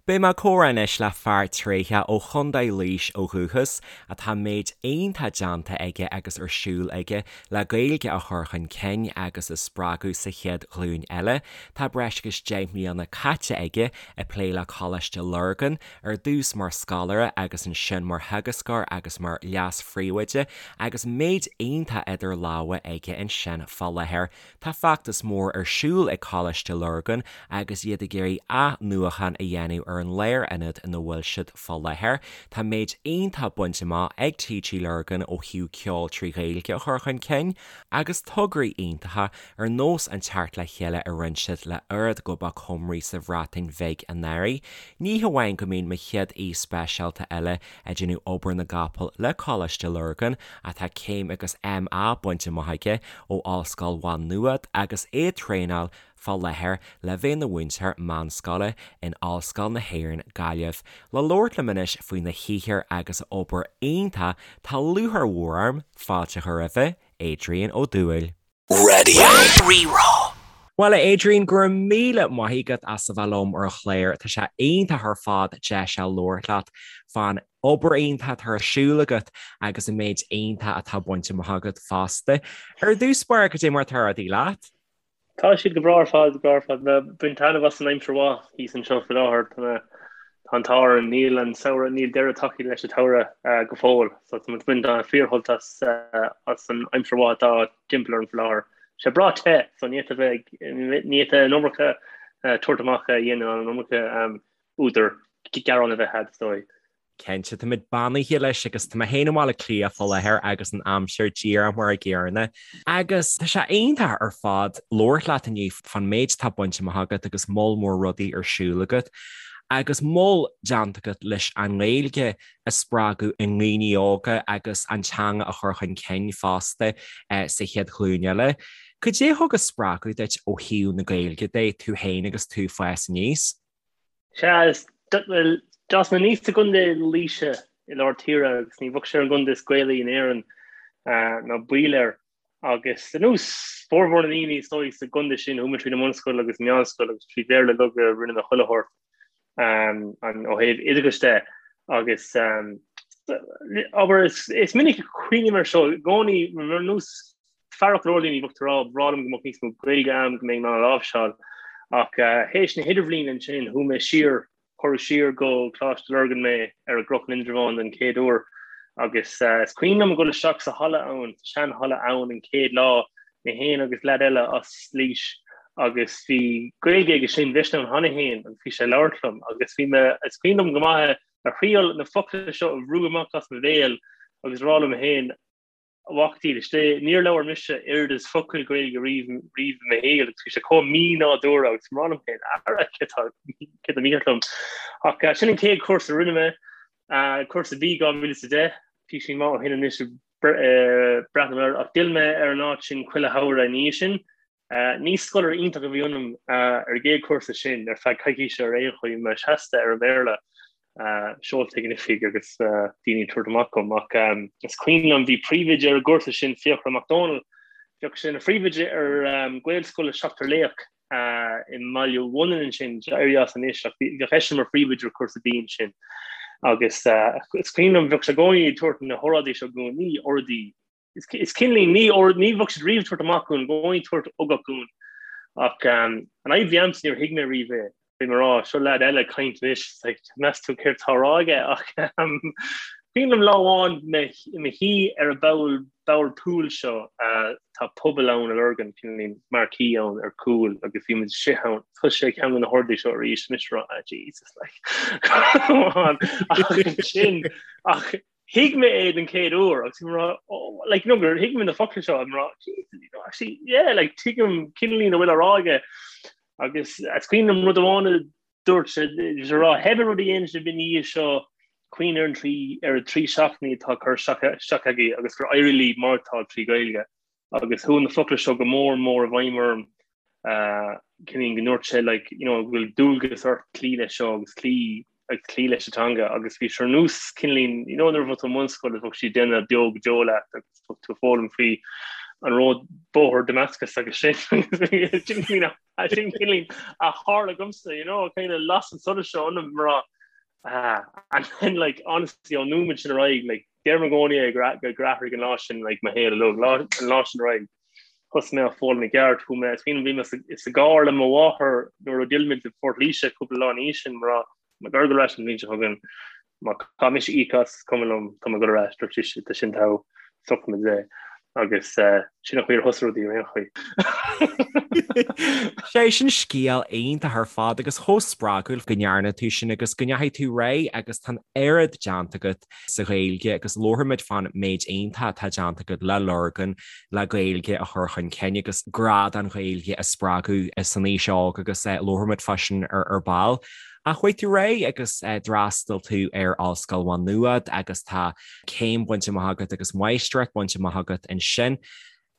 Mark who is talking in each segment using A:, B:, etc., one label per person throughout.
A: Beidh mé ag comhrá anois le fear tréitheach ó Chontae Laois ó dhúchas, atá méid iontach déanta aige agus ar siúl aige le Gaeilge a chur chun cinn agus a spreagadh sa chéad ghlúin eile. Tá breis agus 10 mbliana caite aige ag plé le Coláiste Lurgan, ar dtús mar scoláire agus ansin mar theagascóir agus mar leas-phríomhoide, agus méid iontach idir lámha aige ansin fá láthair. Tá feachtas mór ar siúl ag Coláiste Lurgan agus iad ag iarraidh athnuachan a dhéanamh ar an lárionad ina bhfuil siad fá láthair. Tá méid iontach bainte amach ag TG Lurgan ó thaobh ceol trí Ghaeilge a chur chun cinn agus tograí iontacha ar nós an teacht le chéile a rinne siad le Urdd Gobog Cymru sa Bhreatain Bheag anuraidh. Ní hamháin go mbíonn mo chéad aoi speisialta eile ag déanamh obair na gcapall le Coláiste Lurgan ach tá céim agus MA bainte amach aige ó Ollscoil Mhá Nuad agus é ag traenáil fá láthair le bheith ina mhúinteoir meánscoile in Ollscoil na hÉireann, Gaillimh. Le labhairt liom anois faoina shaothar agus a obair iontach tá lúcháir mhór orm fáilte a chur roimhe, Adrian Ó Dubhghaill.
B: Raidió Rí-Rá.
A: Bhuel, a Adrian, go raibh míle maith agat as a bheith liom ar an chlár. Tá sé iontach ar fad deis a labhairt leat fán obair iontach atá ar siúl agat agus an méid iontach atá bainte amach agat fosta. Ar dtús báire, cad é mar atá rudaí leat?
C: Tá siad go breá ar fad, go breá ar fad. Mé ag baint taitneamh as an aimsir mhaith thíos anseo faoi láthair. Tá mé, tá an t-ádh orainn, níl an samhradh, níl deireadh tagtha leis an tsamhradh go fóill. So tá muid ag baint fíorshult as as an aimsir mhaith atá timpeall orainn faoi láthair. Tá sé breá te, so ní fhéadfá bheith ag, ní fhéadfá an iomarca tabhairt amach a dhéanamh an iomarca údar gearán a bheith agat, is dóigh.
A: Cinnte, táimid beannaithe leis agus tá mé féin i mBaile Átha Cliath fá láthair agus an aimsir díreach mar a gcéanna. Agus tá sé iontach ar fad labhairt leat inniu fán méid atá bainte amach agat agus moll mór rudaí ar siúl agat agus moll déanta agat leis an nGaeilge a spreagadh i ndaoine óga agus an teanga a chur chun cinn fosta sa chéad ghlúin eile. Cad é a thug an spreagadh duit ó thaobh na Gaeilge de, tú féin agus tú ag fás aníos?
C: Sea, is, bhuel, d'fhás mé aníos i gContae Laoise i lár tíre agus ní bheadh sé ar an gcontae is Gaelaí in Éirinn, ná baol air. Agus ar nós formhór na ndaoine is dóigh sa gcontae sin, chuaigh mé tríd an mbunscoil agus an meánscoil agus trí Bhéarla uilig a rinne mé chuile shórt ó thaobh oideachais de. Agus abair, is minic a chuimhním air seo i gcónaí, ar nós Fearacht go leor daoine bheadh tú ag rá, ba bhreá liom go mbeadh níos mó Gaeilge agam, go mbeinn in ann a láimhseáil. Ach théis na hidirbhliana ansin, chuaigh mé siar, cuireadh siar go Coláiste Lurgan mé ar an gCnoc in Indreabhán den chéad uair. Agus is cuimhin liom ag dul isteach sa halla ann, sa seanhalla ann an chéad lá, mé féin agus leaid eile as Laois agus bhí Gaeilge aige sin, bhí eisean ann cheana féin agus bhí sé ag labhairt liom agus bhí mé, is cuimhin liom go maith ag triail na focla seo a bhrú amach as mo bhéal agus rá liom féin, A mhac dílis Dé, níor labhair mise oiread is focal Gaeilge riamh riamh i mo shaol agus bhí sé chomh mí-nádúrtha agus mé ag rá liom féin, ara, céard atá, céard atá mícheart liom? Ach sin an chéad chúrsa a rinne mé, cúrsa B 2010, píosaín maith ó shin anois ag breathnú air, ach d'fhill mé ar an áit sin chuile shamhradh ina dhiaidh sin. Ní scoláire iontach a bhí ionam ar an gcéad chúrsa sin, ar feadh coicíse ar aon chaoi, mé seasta ar an mBéarla, seolta ag an oifig agus daoine ag tabhairt amach dhom. Ach is cuimhin liom, bhí príomhoide ar an gcúrsa sin, Fiachra Mac Dónaill, bheadh sé ina phríomhoide ar Ghaelscoil Seachtar Laoch i mBaile Bhunainn ansin, éirithe as anois, ach bheadh eisean mar phríomhoide ar chúrsa B ansin. Agus is cuimhin liom, bheadh sé i gcónaí ag tabhairt na hóráidí seo dhúinn, ní óráidí Is cineáilín, ní ní bheadh siad riamh ag tabhairt amach dhúinn, i gcónaí ag tabhairt ugach dhúinn. Ach an fhadhb a bhí a'msa níor thuig mé riamh é. Bhí mé ag rá, seo leaid eile ag caint anois, like, meas tú céard atá á rá aige? Ach cuimhin liom lá amháin mé i mo shuí ar an bpoll, bord pool seo, tá puball ann i Lurgan, cineáilín marquee ann ar cúl agus bhí muid istigh ann. Thosaigh sé ceann de na hóráidí seo arís, mise ag rá, ah Jesus, like, come on. Ach ansin, ach Thuig mé é den chéad uair agus bhí mé ag rá, oh, like, you know, gur thuig mé na focla seo, I'm rá, Jesus, you know, actually, yeah, like, tuigim cineáilín a bhfuil á rá aige. Agus is cuimhin liom rud amháin a dúirt sé, bhí sé ag rá, pé rud a dhéanann sibh ina dhiaidh seo, cuimhnigh ar an trí, ar an trí seachtainí atá curtha isteach, isteach agaibh agus gur éirigh libh maireachtáil trí Ghaeilge. Agus chuaigh na focla seo go mór mór i bhfeidhm orm, cineáilín go ndúirt sé like, you know, go bhfuil dualgas ort cloí leis seo agus cloí agus cloí leis an teanga agus bhí sé ar nós cineáilín, you know, nuair a bheadh tú i mbunscoil agus bheadh siad ag déanamh beo go deo leat agus bheadh tú ag foghlaim faoi an ród bóthar Damascus agus sin sin sin cineál a tharla dhomsa, you know, kind of las an solas seo ionam mar ah, and then like honestly ón nóiméad sin ar aghaidh like deirim i gcónaí é gur gur athraigh an lá sin like mo shaol uilig, lá an lá sin ar aghaidh thosaigh mé ag foghlaim i gceart chuaigh mé is cuimhin bhí mé sa gcarr le mo mháthair nuair a d'fhill muid i Port Laoise cúpla lá ina dhiaidh sin mar Tá mé ag dul ar ais an bhliain seo chugainn. Má caithfidh mise íoc as, is cuma liom, tá mé ag dul ar ais, dúirt sise, tá sin togha, socraímid é. Agus sin an chaoi ar thosaigh rudaí ar aon chaoi.
A: Sé sin scéal iontach ar fad agus chomh spreagúil go ndearna tú sin agus go ndeachaigh tú ar aghaidh agus tá an oiread déanta agat sa Ghaeilge agus labharfaimid fán méid iontach atá déanta agat le Lurgan le Gaeilge a chur chun cinn agus grá don Ghaeilge a spreagadh san aois óg agus labharfaimid fá sin ar ball. Ach chuaigh tú ar aghaidh agus d'fhreastail tú ar Ollscoil Mhá Nuad agus tá céim bainte amach agat agus máistreacht bainte amach agat ansin.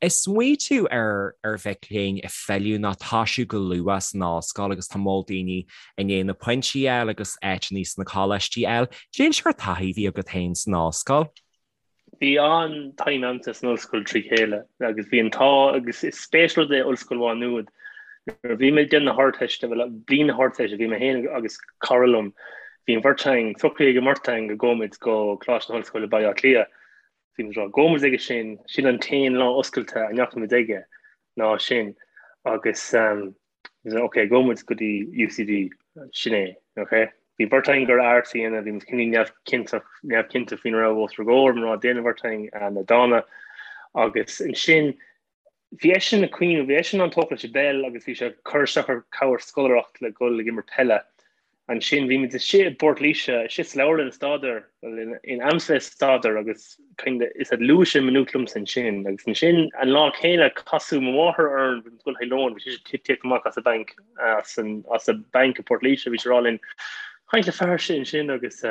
A: Ag smaoitiú ar ar mhic léinn ag filleadh nó toisiú go luath san ollscoil agus tá moll daoine i ndiaidh na pointí a fháil agus áiteanna sna coláistí a fháil. Cén sórt taithí a bhí agat féin san ollscoil?
C: Bhí an-time a'msa san ollscoil trí chéile agus bhí an t-ádh agus is spéisiúil rud é Ollscoil Mhá Nuad. Nuair a bhí mé ag déanamh na hArdteiste, bhuel bliain na hArdteiste, bhí mé féin agus cara liom, bhí an bheirt againn, socraithe ag an mbeirt againn go gabhfaimid go Coláiste na hOllscoile Baile Átha Cliath. Bhí muid ag rá, gabhfaimid aige sin, sin an t-aon lá oscailte a ndeachaimid aige ná sin agus Ok, gabhfaidh muid go dtí UCD, sin é, ok? Bhí beirt againn ag iarraidh arts a dhéanamh, bhí muid cineál neamhchinnteach, neamhchinnte faoina raibh os ár gcomhair, mar déanann an bheirt againn na dána. Agus ansin, bhí eisean ag cuimhneamh, bhí eisean an-tógtha leis an bpeil agus bhí sé ag cur isteach ar cabhair scoláireacht le dhul ag imirt peile. Ansin bhí muid istigh i bPort Laoise, istigh sa leabharlann ag staidéar, bhuel in am sa staidéar agus kind of is luaigh sé Maynooth liomsa ansin agus ansin an lá céanna casadh mo mháthair orainn bhí muid ag dul chuig lón, bhí sise ag tíocht amach as an banc, as an as an banc i bPort Laoise, bhí sí ag rá linn caint le fear sin ansin agus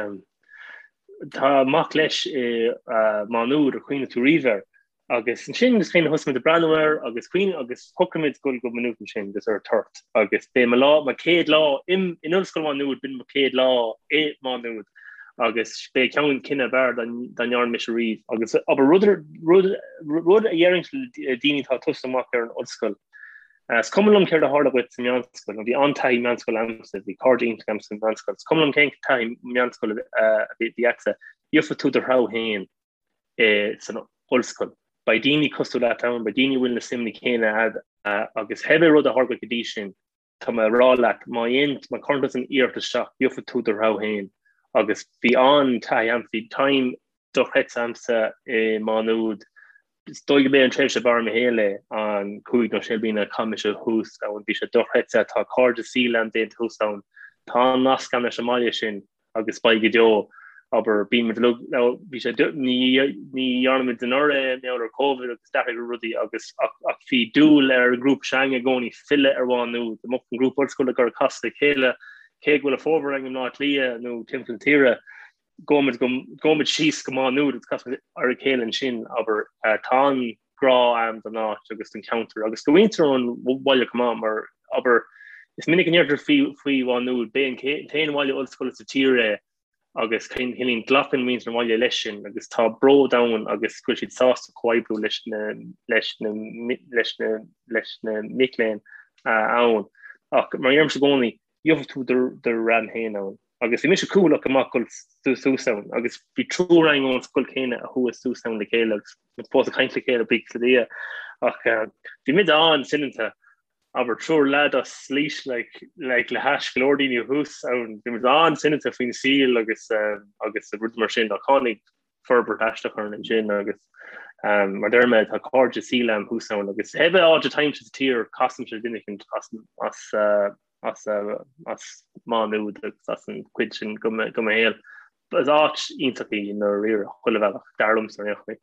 C: tá mac leis i Má Nuad ar chuimhnigh tú riamh air. Agus ansin is kind of thosaigh muid ag breathnú air agus cuimhne agus shocraigh muid dul go Maynooth ansin agus ar tort agus b'é mo lá, mo chéad lá in Ollscoil Mhá Nuad, b'in mo chéad lá i Má Nuad agus b'é ceann cinneadh ab fhearr dá ndearna mise riamh. Agus abair rud, rud, rud a dhéarfainn le daoine atá ag tosú amach ar an ollscoil, is cuma liom céard a tharla dhuit sa meánscoil, nó bhí an-taithí meánscoile a'msa, bhí cairde iontach a'm sa mheánscoil, is cuma liom cén taithí meánscoile a bhí a'tsa, gheobhaidh tú do threabh féin. san ollscoil. Beidh daoine cosúil leat ann, beidh daoine a bhfuil na suimeanna céanna a'd agus pé rud a tharla go dtí sin, tá mé ag rá leat, má dhéan, má chuireann tú an iarracht isteach, gheobhaidh tú do threabh féin. Agus bhí an-taithí a'm, bhí time dochreidte a'msa i Má Nuad. Is dóigh go b'é an tréimhse ab fhearr i mo shaol é, an cúig nó sé bliana a chaith mise thuas ann, bhí sé dochreidte, tá cairde saoil a'm déanta thuas ann, tá an nasc a'm leis an mbaile sin. agus beidh go deo, abair, bíonn muid uilig, nó bhí sé, ní, ní dhearna muid anuraidh é, mar gheall ar Covid agus d'athraigh rudaí agus, ach, ach bhí dúil ar an ngrúpa s'againn i gcónaí filleadh ar Mhá Nuad, dá mbeadh an grúpa ollscoile ag iarraidh casadh le chéile, cé go bhfuil a formhór againn i mBleá Cliath nó timpeall na tíre, gabhaimid go, gabhaimid síos go Má Nuad agus casfaimid ar a chéile ansin, abair, tá an. grá a'm don áit agus don cheantar agus do mhuintir an bhaile chomh maith mar, abair, is minic a ndeirtear faoi faoi Mhá Nuad, b'é an t-aon bhaile ollscoile sa tír é agus cineál glacann muintir an bhaile leis sin agus tá bród ann agus go bhfuil siad sásta comhoibriú leis na leis na leis na leis na mic léinn ann. Ach mar a deirimse i gcónaí, gheobhaidh tú do dhream féin ann. Agus bhí mise cúthaileach go maith dul suas ann agus bhí triúr againn ón scoil chéanna a chuaigh suas ann le chéile agus muid fós ag caint le chéile, buíochas le Dia. Ach bhí muid an-soineanta, abair triúr leaid as Laois like, like le hais go leor daoine thuas ann, bhí muid an-soineanta faoin saol agus agus rud mar sin ach tháinig forbairt aisteach orainn ansin agus mar deir mé tá cairde saoil a'm thuas ann agus pé áit atáimse sa tír casaimse duine éicint as as as as Má Nuad agus as an chuid sin de mo shaol. Is áit iontach í i ndáiríre chuile bhealach, dar liomsa ar aon chaoi.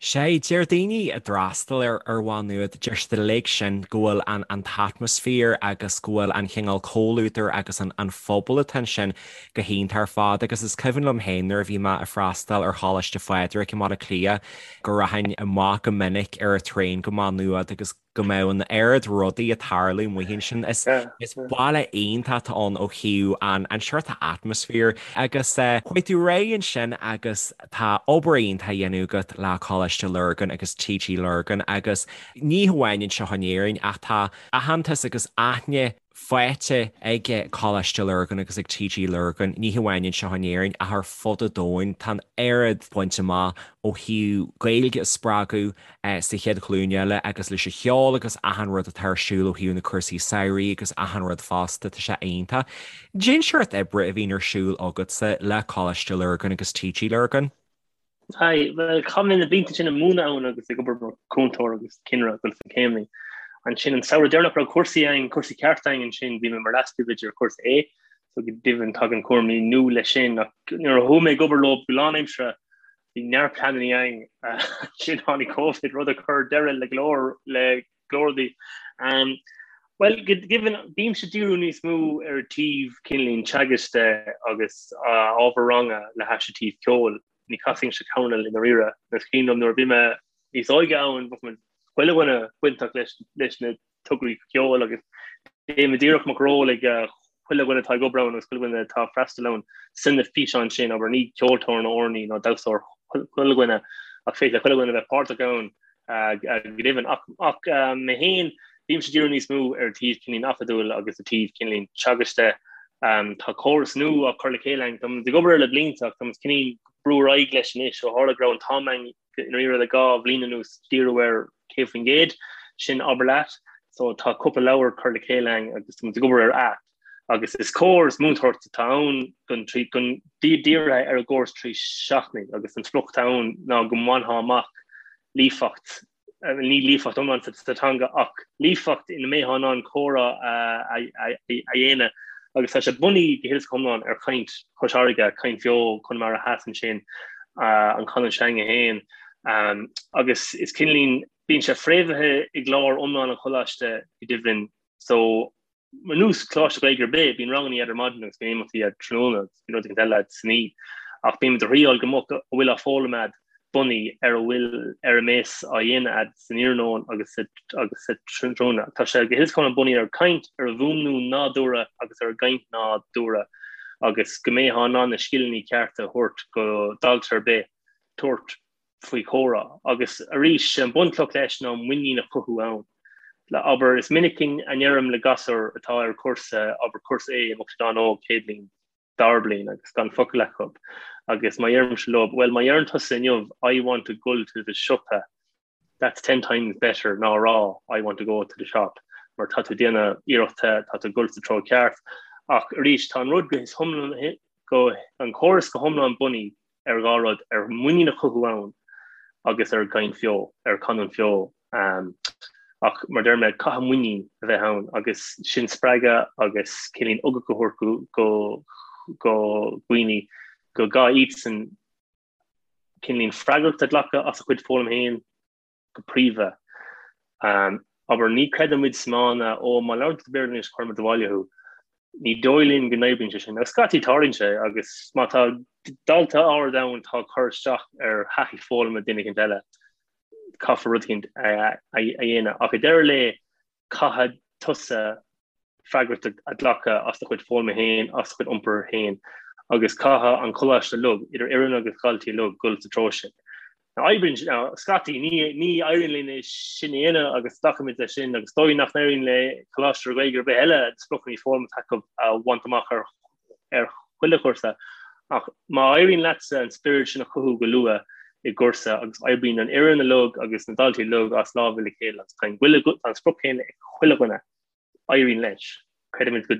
A: Sea, deir daoine a d'fhreastail ar ar Mhá Nuad, deir siad uilig sin go bhfuil an an t-atmaisféar agus go bhfuil an chineál comhluadair agus an an phobal atá ansin go hiontach ar fad agus is cuimhin liom féin nuair a bhí mé ag freastal ar Choláiste Phádraig i mBaile Átha Cliath go rachainn amach go minic ar an traein go Má Nuad agus. go mbeadh an oiread rudaí ag tarlú amuigh ansin. Is is baile iontach atá ann ó thaobh an an seort atmosphere agus chuaigh tú ar aghaidh ansin agus tá obair iontach á dhéanamh agat le Coláiste Lurgan agus TG Lurgan agus ní hamháin anseo in Éirinn ach tá aitheantas agus aithne faighte ag Coláiste Lurgan agus ag TG Lurgan, ní hamháin anseo in Éirinn ach ar fud an domhain. Tá an oiread bainte amach ó thaobh Gaeilge a spreagadh sa chéad ghlúin eile agus leis an cheol agus achan rud atá ar siúl ó thaobh na cúrsaí samhraidh agus achan rud fosta, tá sé iontach. Cén seort oibre a bhíonn ar siúl agatsa le Coláiste Lurgan agus TG Lurgan?
C: Aye, bhuel, chaith mé na blianta sin ag múineadh ann agus ag obair mar chúntóir agus cinnire ag dul sna céimeanna. Ansin an samhradh deireanach raibh cúrsaí againn, cúrsaí ceart againn ansin, bhí mé mar leas-phríomhoide ar chúrsa A, so go deimhin tagann cúraimí nua leis sin ach nuair a chuaigh mé ag obair leo go lánaimseartha, bhí neart pleananna againn. Ansin tháinig Covid, rud a chuir deireadh le go leor le go leor rudaí. Bhuel, go deimhin, bímse ag díriú níos mó ar an taobh cineáilín teagaisc de agus ábhar ranga le hais an taobh ceoil. Ní chasaimse coirnéal i ndáiríre. Is cuimhin liom nuair a bhí mé níos óige ann, bheadh muid chuile dhuine bainteach leis na tograí ceoil agus déanaimid iarracht mbeadh ról ag chuile dhuine atá ag obair ann agus chuile dhuine atá ag freastal ann san na físeáin sin, abair ní ceoltóir nó amhránaí nó damhsóir chuile dhuine ach féidir le chuile dhuine bheith páirteach ann. Go deimhin. Ach mé féin, bímse ag díriú níos mó ar an taobh cineáilín acadúil agus an taobh cineáilín teagaisc de. Tá córas nua á chur le chéile againn. Táimid ag obair air le blianta ach táimid cineáilín ag brú ar aghaidh leis anois ó tharla go raibh an t-am againn i ndáiríre le 2 bhliain anuas díriú air 100%, sin abair leat. So tá cúpla leabhar curtha le chéile againn agus táimid ag obair ar aip. Agus is córas múinteoireachta atá ann don don dírithe ar an gcóras 3 seachtainí agus an sprioc atá ann ná go mbainfeá amach líofacht, ní líofacht iomlán sa teanga ach líofacht ina mbeifeá in ann comhrá a dhéanamh agus tá sé bunaithe go huile is go hiomlán ar chaint Chois Fharraige, caint bheo Chonamara Theas ansin, an chanúint s'againne féin agus is cineáilín, bíonn sé fréamhaithe i gclár iomlán an choláiste go deimhin so Ar nós coláiste Gaeilge ar bith, bíonn ranganna agat ar maidin agus bíonn imeachtaí agat tráthnóna agus bíonn rud éicint eile agat san oíche. Ach bímid ag triáil go mbeadh a bhfuil á foghlaim agat bunaithe ar a bhfuil ar a mbeas á dhéanamh agat san iarnóin agus sa agus sa tráthnóna. Tá sé go huile is go hiomlán bunaithe ar chaint, ar an bhfuaimniú nádúrtha agus ar an gcaint nádúrtha agus go mbeifeá in ann na scileanna cearta a thabhairt go dalta ar bith tabhairt faoi chomhrá. Agus arís, sé an bunchloch leis ná muinín a chothú ann. Le, abair, is minic a ndeirim le gasúir atá ar chúrsa, abair, cúrsa A, a mbeadh siad an-óg, chéad bhliain, dara bliain, agus gan focal acu. Agus má dheirimse leo, bhuel, má dheireann tusa inniu, I want to gul to the siopa, that's ten times better ná a rá, I want to go to the shop, mar tá tú ag déanamh iarrachta, tá tú ag gul sa treo ceart. Ach arís, tá an rud go hiomlán, go, an córas go hiomlán bunaithe ar dhá rud, ar mhuinín a chothú ann agus ar gcaint bheo, ar chanúint bheo. Ach mar deir mé, caithfidh muinín a bheith ann agus sin spreagadh agus cineáilín ugach a thabhairt go go dhaoine go gcaithfidh iadsan cineáilín freagracht a ghlacadh as a chuid foghlaim féin. go príomha. Abair, ní chreideann muid sa mana, ó, má labhrann tú Béarla anois cuirfidh muid abhaile thú. Ní dóigh linn go n-oibríonn sé sin. Agus scaití tarlaíonn sé agus má tá dalta áirid ann atá ag cur isteach ar thaithí foghlama duine éicint eile, caithfear rud éicint a dhéanamh. Ach ag deireadh an lae, caithfidh tusa freagracht a ghlacadh as do chuid foghlama féin, as do chuid iompair féin, agus caithfidh an coláiste uilig, idir fhoireann agus dhaltaí uilig, dul sa treo sin. Now, oibríonn, now, scaití, ní, ní éiríonn linn é sin a dhéanamh agus glacaimid leis sin, agus is dóigh nach n-éiríonn le coláiste Gaeilge ar bith eile na spriocanna foghlama atá acu a bhaint amach ar ar chuile chúrsa, ach má éiríonn leatsa an spiorad sin a chothú go luath i gcúrsa agus oibríonn an fhoireann uilig agus na daltaí uilig as lámha le chéile agus tá an tá an sprioc céanna ag chuile dhuine, éiríonn leis. Creidimid go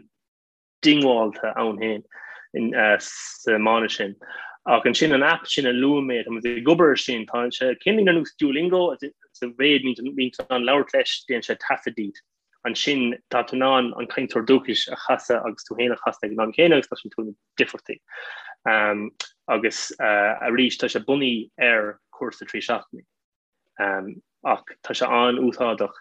C: diongbháilte ann féin sa mana sin. Ach ansin an aip sin a luaigh mé, tá muid ag obair air sin, tá sé cineál ar nós Duolingo sa mhéid bíonn tú in ann labhairt leis, déanann sé taifead díot. Ansin tá tú in ann an cainteoir dúchais a chasadh agus tú féin a chasadh ag an am céanna agus cloiseann tú na difríochtaí. Agus arís tá sé bunaithe ar chúrsa 3 seachtainí. Ach tá sé an-úsáideach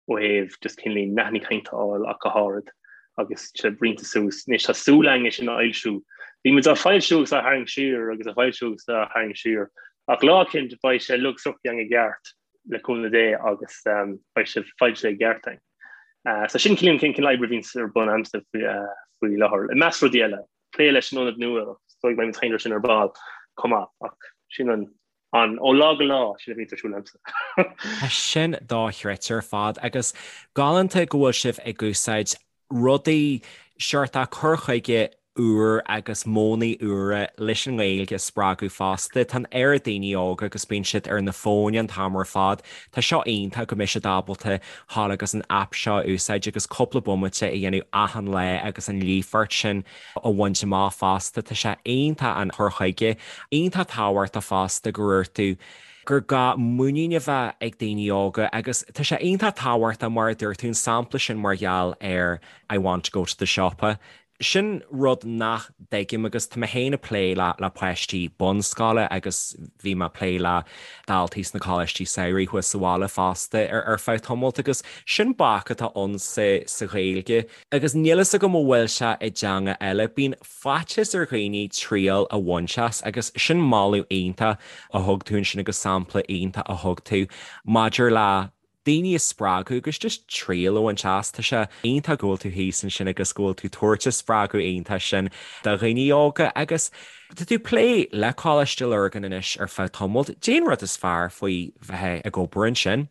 C: ó thaobh just cineál nathanna cainte a fháil ach go háirid agus sé roinnte suas. Anois tá súil againn é sin a fhoilsiú. Bhí muid á foilsiú agus á tharraingt siar agus á foilsiú agus á tharraingt siar. Ach lá eicínt beidh sé uilig sroichte againn i gceart. le cúnamh Dé agus beidh sé foilsithe i gceart againn. So sin cineál an cineál oibre a bhíonns ar bun a'msa faoi láthair. I measc rudaí eile, plé leis an ionad nua, is dóigh go mbeidh muid ag caint air sin ar ball chomh maith ach sin an an ó lá go lá sin a bhíonns ar siúl a'msa.
A: Tá sin dochreidte ar fad agus galánta go bhfuil sibh ag úsáid rudaí seort cur chuige úr agus modhanna úra leis an nGaeilge a spreagadh fosta. Tá an oiread daoine óga agus bíonn siad ar na fóin an t-am ar fad. Tá seo iontach go mbeidh siad ábalta dhul agus an aip seo a úsáid agus cúpla bomaite a dhéanamh achan lá agus an líofacht sin a bhaint amach fosta. Tá sé iontach an cur chuige. Iontach tábhachtach fosta go ndúirt tú gur gá muinín a bheith ag daoine óga agus tá sé iontach tábhachtach mar a dúirt tú an sampla sin mar gheall ar I want to go to the siopa. Sin rud nach dtuigim agus tá mé féin ag plé le le páistí bunscoile agus bhí mé ag plé le daltaí sna coláistí samhraidh thuas sa bhaile fosta ar ar feadh tamalt agus sin bac atá ann sa sa Ghaeilge agus níl fhios agam an bhfuil sé i dteanga eile. Bíonn faitíos ar dhaoine triail a bhaint as agus sin moladh iontach a thug tú ansin agus sampla iontach a thug tú maidir le daoine a spreagadh agus just triail a bhaint as. Tá sé iontach go bhfuil tú thíos ansin agus go bhfuil tú tabhairt an spreagadh iontach sin do dhaoine óga agus tá tú ag plé le Coláiste Lurgan anois ar feadh tamaill. Cad é an rud is fearr faoi bheith ag obair ansin?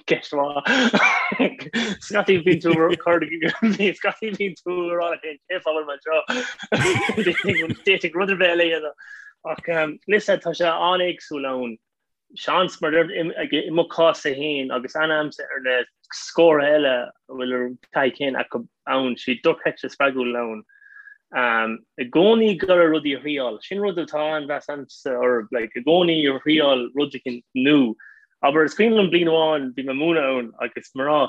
C: Ceist mhaith. Scaití bíonn tú cur scaití bíonn tú ag rá cén fáth a bhfuil mé anseo. D'fhéadfainn rud ar bith eile a dhéanamh. Ach listen tá sé an-éagsúil ann. Seans mar i mo chás-sa féin agus aithne a'msa ar na scórtha eile a bhfuil an taithí chéanna acu ann, siad dochreidte spreagúil ann. I gcónaí ag iarraidh rudaí a thriáil. Sin rud atá an-mheas a'msa orthu, like, i gcónaí ag thriáil rud éicint nua. Abair, is cuimhin liom bliain amháin bhí mé ag múineadh ann agus mé ag rá,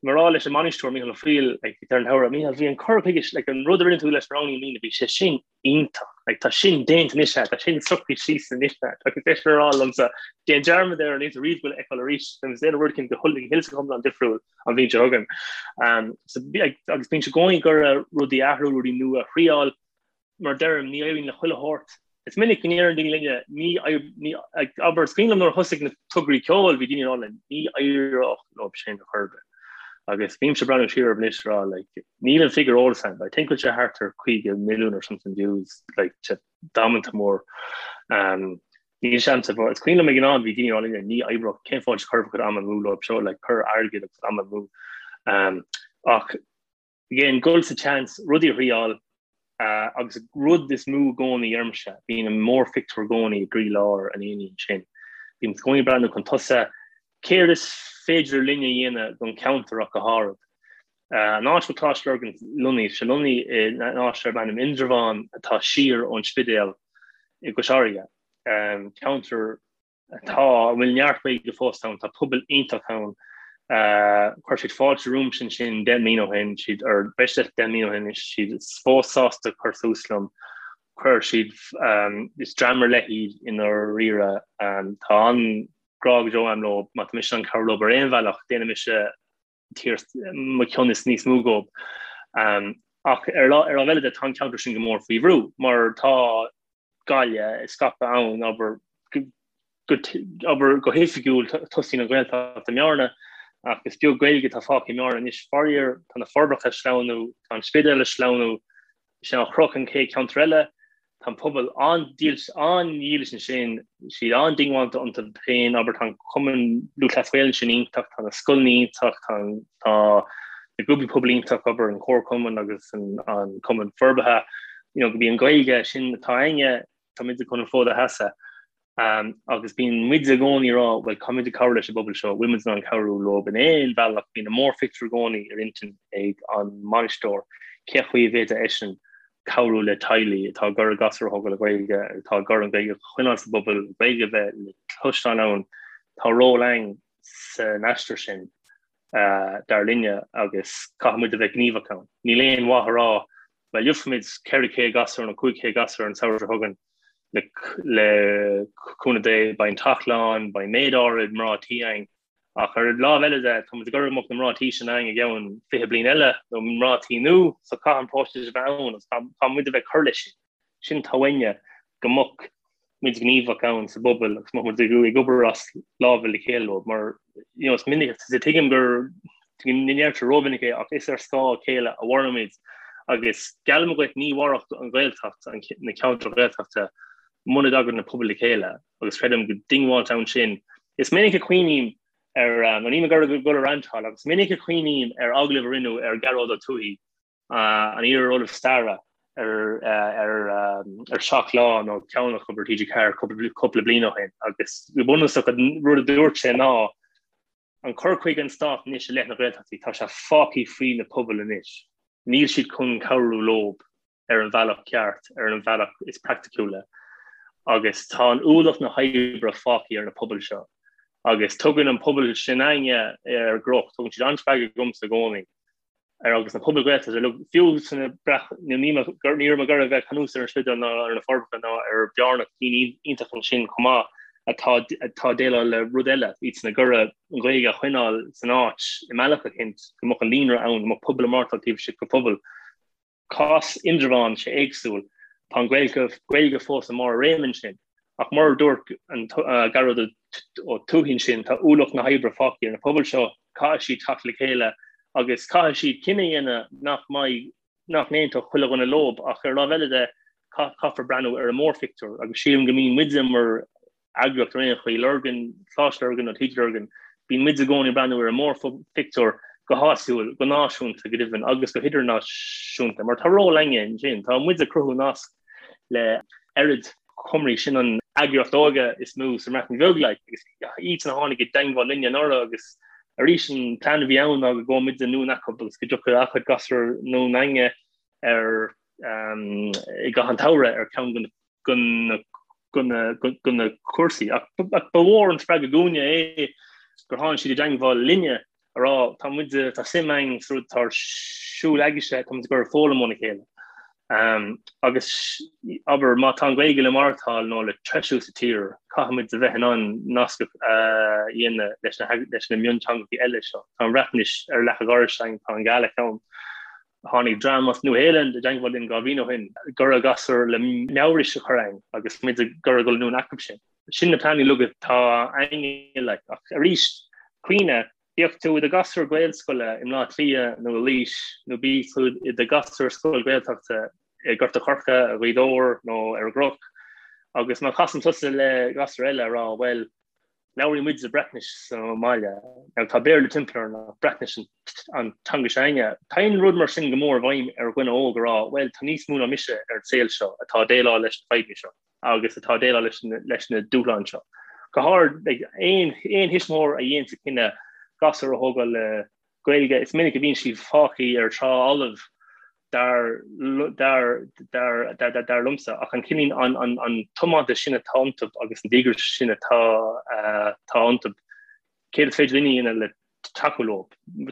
C: mé ag rá leis an mbainisteoir, Mícheál Ó Foighil, like, ar an samhradh, Mícheál, bhí an cur chuige, like, an rud a rinne tú leis na ranganna i mbliana, bhí sé sin iontach. Like, tá sin déanta anois agat, tá sin socraithe síos anois agat. Agus eisean ag rá liomsa, déan dearmad air, níl tú riamh ag goil a fheiceáil arís, beidh muid ag déanamh rud éicint go hiomlán difriúil an bhliain seo chugainn. Um, so, like, agus bíonn siad i gcónaí ag iarraidh rudaí a athrú, rudaí nua a thriáil, mar deirim, ní éiríonn le chuile shórt. Is minic go ndeireann daoine linne, ní, ní, abair, is cuimhin liom nuair a thosaigh na tograí ceoil, bhí daoine ag rá linn, ní éireodh leo sin ar chor ar bith. Agus bímse ag breathnú siar orthu anois ag rá, like, níl an figiúr ar eolas agam, but I think bhfuil sé thart ar 50 milliún or something views, like, sé damanta mór. Um, níl sé a'msa, but is cuimhin liom ag an am bhí daoine ag rá linne, ní oibreodh, cén fáth a gcuirfeadh am amú leo seo, like, cur airgead agus am amú. Um, ach Again, dul sa tseans, rudaí a thriáil, agus rud is mó i gcónaí ormsa, bíonn an mórphictiúr i gcónaí i gcroílár an aonaigh ansin. Bíonn i gcónaí ag breathnú chun tosaigh, céard is féidir linn a dhéanamh don cheantar ach go háirid. An áit a bhfuil Coláiste Lurgan lonnaithe, tá sé lonnaithe in áit darb ainm Indreabhán atá siar ón Spidéal i gCois Fharraige, ceantar Tá, a bhfuil neart Gaeilge fós ann, tá pobal iontach ann. Chuir siad fáilte romhamsa ansin 10 mbliana ó shin, siad, or breis is 10 mbliana ó shin anois, siad fós sásta cur suas liom. Chuir siad, is dream ar leith iad i ndáiríre. Tá an-ghrá go deo agam leo, má tá mise in ann cabhrú leo ar aon bhealach, déanfaidh mise mo chion is níos mó dhóibh. Ach ar ar lámh eile de, tá an ceantar sin go mór faoi bhrú, mar tá Gaillimh ag scaipeadh ann, abair, go, abair, go hoifigiúil tosaíonn an Ghaeltacht i mBearna, ach is beag Gaeilge atá fágtha i mBearna anois. Faraor, tá na Forbacha ag sleamhnú, tá an Spidéal ag sleamhnú, Sé an Chnoc an chéad cheantar eile. Tá an pobal an-dílis ansin, siad an-diongbháilte iontu féin, abair, tá an Cumann Lúthchleas Gael ansin iontach, tá na scoileanna iontach, tá na grúpaí pobail iontach, abair, an Comharchumann agus an Cumann Forbartha, you know, gurb í an Ghaeilge sin atá againne, tá muid chun an fód a sheasamh. Agus bíonn muid i gcónaí ag rá, bhuel, caithfidh muid cabhrú leis an bpobal seo, bhfuil muid in ann cabhrú leo in aon bhealach, bíonn an mórphictiúr i gcónaí ar intinn ag an mbainisteoir, cé chaoi a bhféadfadh eisean cabhrú le teaghlaigh atá ag iarraidh gasúir a thógáil le Gaeilge, atá ag iarraidh an Ghaeilge a choinneáil sa bpobal, an Ghaeilge a bheith le cloisteáil ann, tá ról againn san aistear sin, dar linne, agus caithfidh muid a bheith gníomhach ann. Níl aon mhaith a rá, bhuel, gheobhaimid 400 gasúr nó 500 gasúr an samhradh seo chugainn, Le cúnamh Dé, beidh an teach lán, beidh méid áirid mná tí againn. Ach ar an lámh eile de, tá muid ag iarraidh go mbeadh na mná tí sin againn i gceann 20 bliain eile, nó mná tí nua, so caithfidh an próiseas a bheith ann agus caithfidh muid a bheith ag cur leis sin. Sin atá uainne, go mbeadh. muid gníomhach ann sa bpobal agus mbeadh muid ag obair as lámha le chéile leo mar you know, is minic is tuigim go ndeirtear rómhinic é ach is ar scáth a chéile a mhairimid agus geallaim dhuit ní mhairfeadh an Ghaeltacht, na ceantair Ghaeltachta muna dtagann na pobail le chéile agus creidim go diongbháilte ann sin. Is minic a chuimhním ar, nó níl mé ag iarraidh dul ag rantáil ach is minic a chuimhním ar agallamh a rinneadh ar Ghearóid Ó Tuathaigh an iar-Ollamh Staire ar 7 Lá nó ceann acu ar TG4 cúpla bliain ó shin agus go bunúsach an rud a dúirt sé ná an cur chuige an Stáit anois i leith na Gaeltachtaí, tá sé fágtha faoi na pobail anois. Níl siad chun cabhrú leob ar an bhealach ceart, ar an bhealach is praiticiúla agus tá an ualach na hoibre fágtha ar na pobail seo agus tugann an pobal sin againne ar an gCnoc, tugann siad an-spreagadh dhomsa i gcónaí. ar agus na pobail Ghaeltachta uilig, fiú sna breac ní ní raibh mé ag iarraidh bheith ag cur anuas ar an Spidéal ná ar na Forbacha ná ar Bhearna cinn iontach ansin chomh maith atá atá ag déileáil le rud eile, iadsan ag iarraidh an Ghaeilge a choinneáil san áit i mbealach eicínt, go mbeadh an líonra ann, go mbeadh pobal ag maireachtáil taobh istigh de phobal. Cás Indreabhán, sé éagsúil. Tá an Ghaeilge Gaeilge fós i mbarr a réime ansin. Ach mar a dúirt an Gearóid Ó Tuathaigh ansin, tá ualach na hoibre fágtha ar na pobail seo, caithfidh siad teacht le chéile agus caithfidh siad cinneadh a dhéanamh nach mbeidh, nach n-aontódh chuile dhuine leob. Ach ar an lámh eile de, caithfear breathnú ar an mórphictiúr agus sílim go mbíonn muide mar eagraíocht ar aon chaoi, Lurgan, Coláiste Lurgan nó TG Lurgan, bíonn muid i gcónaí ag breathnú ar an mórphictiúr go háitiúil, go náisiúnta go deimhin agus go hidirnáisiúnta, mar tá ról againne ansin, tá muid ag cruthú nasc le Ered Cymru, sin an eagraíocht óige is mó sa mBreatain Bheag, like, agus iadsan a tháinig i dteangmháil linne anuraidh agus arís an plean a bhí ann ná go gabhadh muid anonn acu agus go dtiocfadh a gcuid gasúr anonn chugainne ar i gcaitheamh an tsamhraidh ar ceann de na de na cúrsaí. Ach ba mhór an spreagadh dúinne é gur tháinig siad i dteangmháil linne a rá tá muid tá suim againn sa rud atá ar siúl agaibhse, tá muid ag iarraidh foghlaim óna chéile. Agus abair má tá an Ghaeilge le maireachtáil nó le treisiú sa tír, caithfidh muid a bheith in ann nasc a dhéanamh leis na leis na mionteangacha eile seo. Tá an Bhreatnais ar leac an dorais againn, tá an Ghaeilge ann. Tháinig dream as Nua-Shéalainn i dteangmháil linn 2 bhliain ó shin, ag iarraidh gasúir le Maorais a chur againn agus muid ag iarraidh dul anonn acu sin. Sin na pleananna uilig atá againne like. Ach arís, cuimhnigh, bíodh tú i do ghasúr Gaelscoile i mBleá Cliath nó i Laois nó bíodh tú i do ghasúr scoil Gaeltachta i nGort a' Choirce, i Gaoth Dobhair nó ar an gCnoc agus má chasann tusa le gasúr eile a rá bhuel, Labhraíonn muide Breatnais sa mbaile. Now tá Béarla timpeall orainn ach Breatnais an teanga s'againne. Téann rud mar sin go mór i bhfeidhm ar dhuine óg a rá, bhuel, tá níos mó ná mise ar an saol seo atá ag déileáil leis na fadhbanna seo agus atá ag déileáil leis na, leis na dúshláin seo. Go háirid, like, aon, aon thuismitheoir a dhéanann an cinneadh gasúr a thógáil le Gaeilge, is minic a bhíonn siad fágtha ar trá fholamh dar dar dar dar dar liomsa ach an cineál an an an tiomantas sin atá iontu agus an díograis sin atá atá iontu céard is féidir linn a dhéanamh le tacú leo?